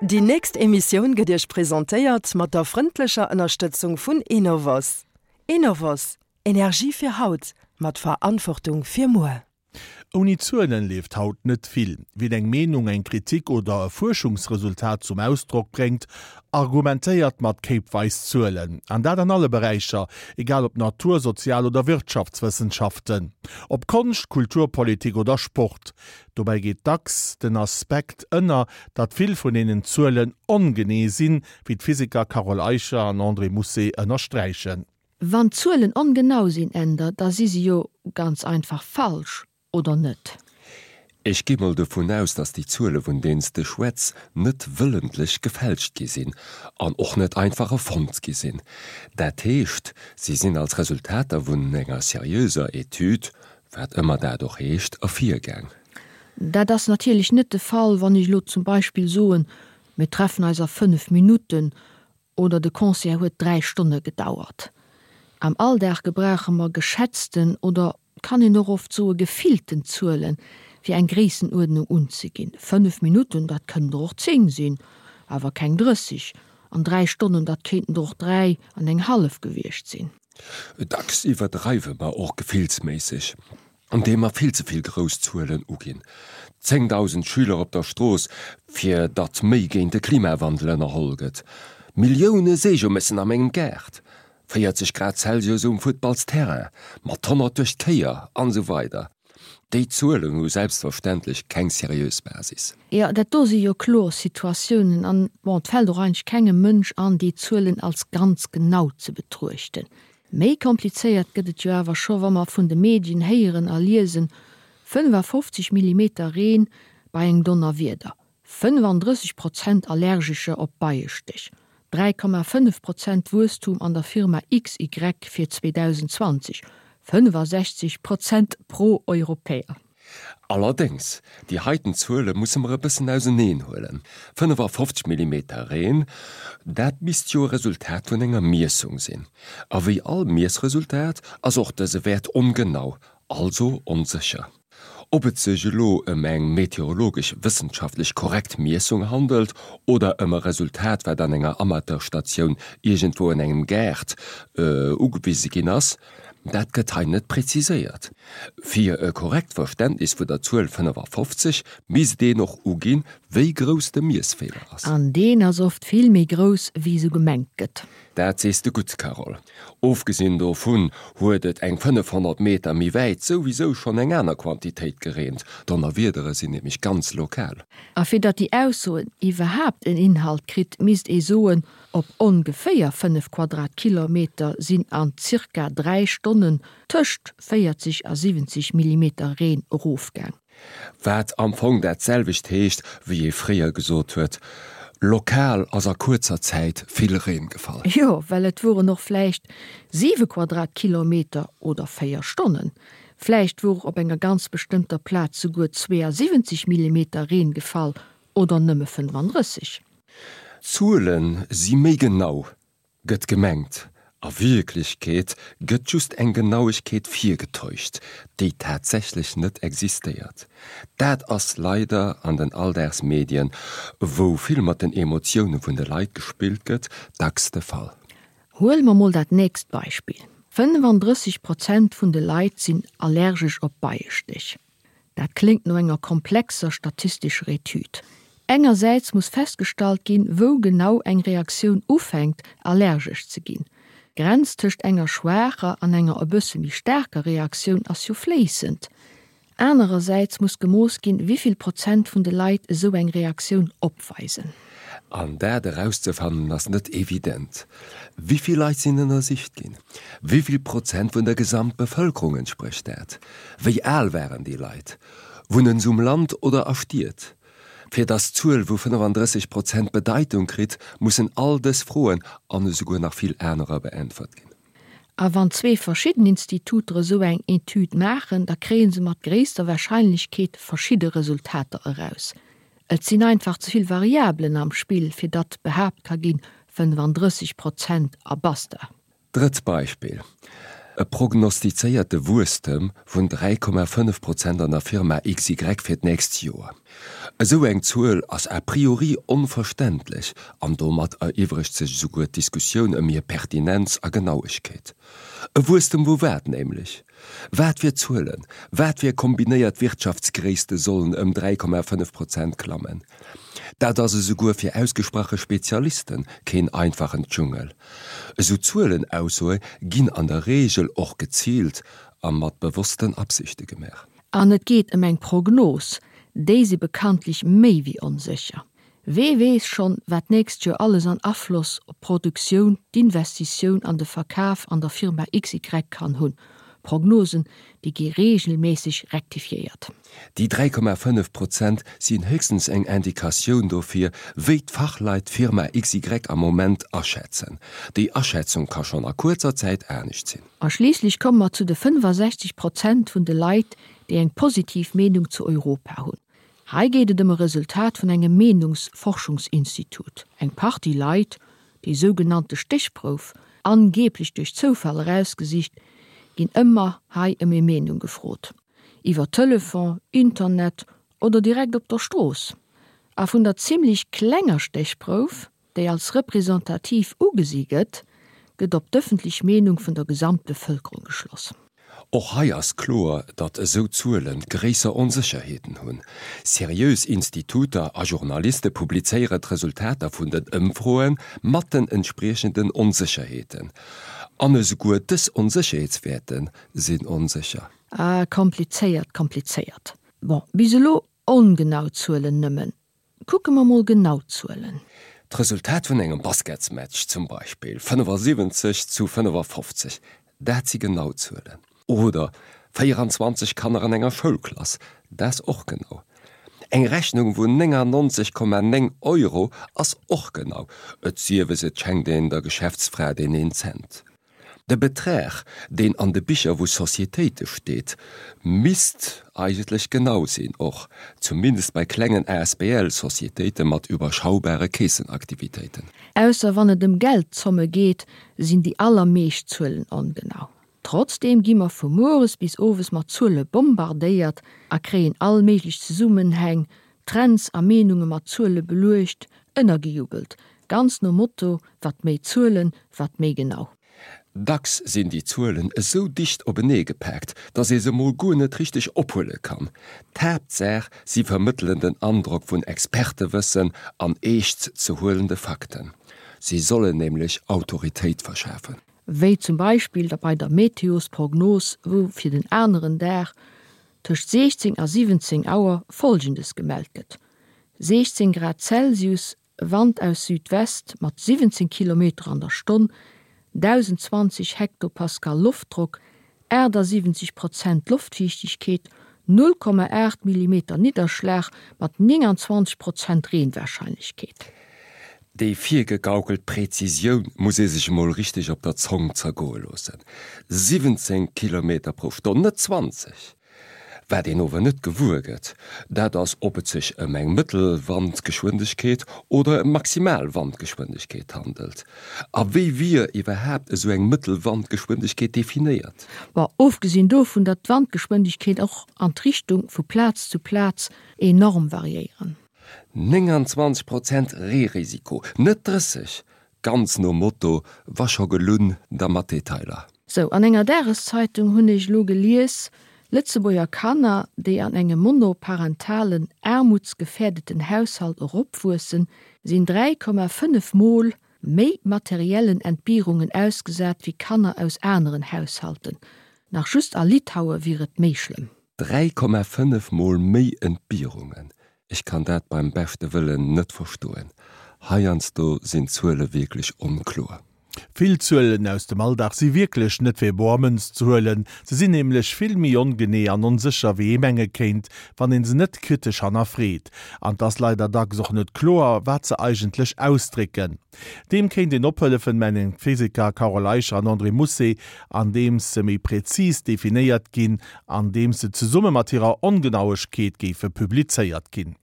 Déi nächst Emissioun gëtt Iech presentéiert mat der frëndlecher Ënnerstëtzung vun Enovos. Enovos, Energie fir haut, mat Verantwortung fir muer. Ouni Zuelen leeft haut net vill. Wien eng Meenung, eng Kritik oder e Fuerschungsresultat zum Ausdrock bréngt, argumentéiert mat kéipweis Zuelen. An dat an alle Beräicher, egal ob Natur-, Sozial oder Wirtschaftswëssenschaften, ob Konscht, Kultur, Politik oder Sport. Dobäi geet dacks den Aspekt ënner, datt vill vun deenen Zuelen ongenee sinn, wéi d'Physiker Carole Eicher an André Mousset ënnersträichen. Wann d'Zuelen ongenau sinn, Änder, da si se jo ganz einfach falsch, oder net? Ech gi mol dovun aus, datt déi Zuele vun deenen s de schwätz net wëllentlech gefälscht gi sinn an och net einfach erfonnt gi sinn. Dat heescht, si sinn als Resultater vun enger seriöser Etüd, wat ëmmer dat och heescht, ervirgaang. Dat ass natierlech net de Fall, wann ech elo zum Beispill soen, mir treffen eis a 5 Minutten oder de Concert huet 3 Stonne gedauert. Am Alldag gebrauche mer geschätzten oder, kann een och oft soe gefillten Zuelen, fir eng Gréissenuerdnung unzeginn. 5 Minutten, dat kënnen der och 10 sinn, awer keng 30. An 3 Stonnen, dat kéinten der och 3 an eng hallef gewiescht sinn. Dacks iwwerdreiwe mer och gefillsméisseg. Andeem mer vill ze vill grouss Zuelen uginn, 10.000 Schüler op der Strooss, fir datt méi géint de Klimawandel ënnerholl gëtt, Millioune Seejomessen a mengem Gaart, 40 Grad Celsius um Futtballsterrain, mat 100 duerch d'Kéier, an esou weider Déi Zuelen hu selbstverständlech keng seriös Basis. Jo, dat do si jo kloer Situatiounen an, bon, et fält och eigentlech kengem Mënsch an, déi Zuelen als ganz genau ze betruechten. Méi komplizéiert gëtt et jo awer scho wa mer vun de Medien héieren a liesen, 55 Millimeter Reen bei engem Donnerwieder, 35 Prozent Allergescher op Beiestéch, 3,5 Prozent Wuesstum an der Firma XY fir 2020, 65 Prozent pro-Europäer. Allerdéngs, déi heiten Zuele musse mer e bëssen auseneen huelen. 55 Millimeter Reen, dat misst jo e Resultat vun enger Miessung sinn. A wéi all Miessresultat ass och dëse Wäert ongenau, also onsécher. Ob et sech elo ëm eng meteorologesch wëssenschaftlech korrekt Miessung handelt oder ëm e Resultat, wat an enger Amateurstatioun iergendwou an engem Gaart ugewise ginn ass, Dat gëtt hei net präziséiert. Fir e korrekt Verständnis vun der Zuel 55 misst een och uginn, wéi grouss de Miessfeeler ass. An deen ass oft vill méi grouss, wéi esou gemengt gëtt. Dat sees de gutt, Carole. Ofgesinn dovun huet et eng 500 Meter méi wäit souwisou schonn eng aner Quantitéit gereent. Donnerwiedere sinn nämlech ganz lokal. A fir datt déi Ausso iwwerhaapt en Inhalt kritt, misst ee soen, Op ongeféier 5 Quadratkilometer sinn an zirka 3 Stonnen tëscht 40 a 70 Millimeter Reen erofgaang. Wat am Fong dat selwecht heescht, wéi ee fréier gesot huet, Lokal ass a kuerzer Zäit vill Reen gefall. Jo, well et woren och vläicht 7 Quadratkilometer oder 4 Stonnen. Vläicht wor op enger ganz bestëmmter Plaz souguer 72 Millimeter Reen gefall oder nëmme 35. Zuele si méi genau, gëtt gemengt. A Wierklechkeet gëtt just eng Genauegkeet virgetäuscht, déi tatsächlech net existéiert. Dat ass leider an den Alldagsmedien, wou vill mat den Emotioune vun de Leit gespillt gëtt, dacks de Fall. Huele mer mol dat nächst Beispill, 35 Prozent vun de Leit sinn allergesch op Beiestéch. Dat kléngt no enger komplexer statistescher Etüd. Engersäits muss festgestallt ginn, wou genau eng Reaktioun ufänkt, allergesch ze ginn. D'Grenz tëscht enger schwaacher an enger e bësse méi staarker Reaktioun ass jo fléissend. Anerersäits muss gemooss ginn, wéi vill Prozent vun de Leit esou eng Reaktioun opweisen. An dat erauszefannen ass net evident. Wéi vill Leit sinn ënnersicht ginn? Wéi vill Prozent vun der Gesamtbevëlkerung entsprécht dat? Wéi al waren déi Leit? Wunnen se um Land oder a Stied? Fir datt d'Zuel vu 35 Prozent Bedeitung kritt, mussen all dës Froen an esouguer nach vill anerer beäntwert ginn. A wann zwee verschidden Instituter esou eng Etüd maachen, da kréie se mat gréisster Warscheinlechkeet verschidde Resultater eraus. Et sinn einfach ze vill Variabelen am Spill, fir datt behaapt ka ginn, 35 Prozent a basta. Drëtt Beispill. E prognostizéierte Wuesstem vun 3,5 Prozent an der Firma XY fir d'nächst Joer. Esou eng Zuel ass a priori onverständlech an domat eriwwregt sech esouguer d'Diskussioun ëm hir Pertinenz a Genauegkeet. E Wuesstem vu wat nämlech? Wat fir Zuelen, wat fir kombinéiert Wirtschaftsgréisste sollen ëm 3,5 Prozent klammen? Dat ass esouguer fir ausgesprache Spezialiste keen einfachen Dschungel. Esou Zuelenaussoe ginn an der Reegel och geziilt a mat bewossten Absichte gemaach. An et geet ëm eng Prognos, déi si bekanntlech méi wéi onsécher. Wee weess schonn, wat d'nächst Joer alles an Afloss op d'Produktioun, d'Investitioun an de Verkaf an der Firma XY kann hunn. Prognosen, déi gi reegelméisseg rektifiéiert. Déi 3,5 Prozent sinn héchstens eng Indikatioun dofir, wéi d'Fachleit d'Firma XY am Moment aschätzen. Déi Aschätzung ka schonn a kuerzer Zäit anescht sinn. A schliisslech komme mer zu de 65 Prozent vun de Leit, déi eng positiv Meenung zu Europa hunn. Hei geet et ëm e Resultat vun engem Meenungsforschungsinstitut. Eng Partie Leit, déi sougenannte Stéchprouf, angeeblech duerch Zoufall erausgesicht, ginn ëmmer hei ëm hir Meenung gefrot. Iwwer Telefon, Internet oder direkt op der Strooss. A vun der zimmlech klenger Stéchprouf, déi als representativ ugesi gëtt, gëtt op d'ëffentlech Meenung vun der Gesamtbevëlkerung geschloss. Och hei ass kloer, datt esou Zuele gréisser Onsécherheeten hunn. Seriös Instituter a Journaliste publizéiere d'Resultater vun den Ëmfroe mat den entspriechenden Onsécherheeten. An esouguer dës Onsécherheetswäerte sinn onsécher. Ah, komplizéiert, komplizéiert. Bon, bis elo ongenau Zuelen nëmmen. Kucke mer mol genau d'Zuelen. D'Resultat vun engem Basketsmatch zum Beispill, 75 zu 55, dat si genau Zuelen. Oder 24 Kanner an enger Schoulklass, dat ass och genau. Eng Rechnung vun 99,9 Euro ass och genau, et sief es et schenkt een der Geschäftsfra deen een Cent. De Betrag, deen an de Bicher vu Societéite steet, misst eigentlech genau sinn, och zumindest bei klengen Asbl-Societéite mat iwwerschaubare Keessenaktivitéiten. Ausser wann et ëm Geldzomme geet, sinn déi allermeescht Zuelen ongenau. Trotzdeem gi mer vu mueres bis owes mat Zuele bombardéiert a kréien all méiglech Zesummenhäng, Trends a Meenunge mat Zuele beluecht, ënnergejubelt, ganz nom Motto, wat méi Zuelen, wat méi genau. Dacks sinn déi Zuelen esou dicht openee gepaakt, datt ee se mol guer net richteg ophuele kann. D'Haaptsaach, si vermëttelen den Androck vun Expertewëssen an eescht ze huelende Fakten. Si sollen nämlech Autoritéit verschafen. Wéi zum Beispill bei der Meteosprognos, wou fir den aneren Dag tëscht 16 a 17 Auer Folgendes gemellt gëtt, 16 Grad Celsius, Wand aus Südwest mat 17 Kilometer an der Stonn, 1.020 Hektopascal Loftdrock, 78 Prozent Loftfiichtegkeet, 0,8 Millimeter Nidderschlag mat 29 Prozent Reenwarscheinlechkeet. Déi virgegaukelt Präzisioun muss ee sech emol richteg op der Zong zergoe loossen. 17 Kilometer pro Stonn, net 20! Wat een ower net gewuer gëtt, dat ass, ob et sech ëm eng Mëttelwandgeschwindegkeet oder ëm Maximalwandgeschwindegkeet handelt. A wéi wier iwwerhaapt esou eng Mëttelwandgeschwindegkeet definéiert? Bon, ofgesinn dovun, datt d'Wandgeschwindegkeet och an d'Richtung vu Plaz zu Plaz enorm variéieren. 29 Prozent Reerisiko, net 30! Ganz nom Motto, wa scho gelunn, da mat Detailer. Sou, an enger Dageszeitung hunn ech elo gelies, Lëtzebuerger Kanner, déi an engem monoparentalen, aarmutsgefährdeten Haushalt eropwuessen, sinn 3,5 mol méi materiellen Entbierungen ausgesat wéi Kanner aus aneren Haushalten. Nach just a Litaue wier et méi schlëmm. 3,5 mol méi Entbierungen, Ech kann dat beim beschte Wëllen net verstoen. Heiansdo sinn d'Zuele wierklech onkloer. Vill Zuelen aus dem Alldag si wierklech net fir boer Mënz ze huelen. Se sinn nämlech vill méi ongenee an onsécher wéi ee menge kéint, wann een se net kritesch hannerfreet. An 't ass leider dacks och net kloer, wat se eigentlech ausdrécken. Deem kéint een ophëllefen, mengen d'Physiker Carole Eicher an André Mousset, andeems se méi präzis definéiert ginn, andeems se zesumme mat hirer Ongenauegkeet géife publizéiert ginn.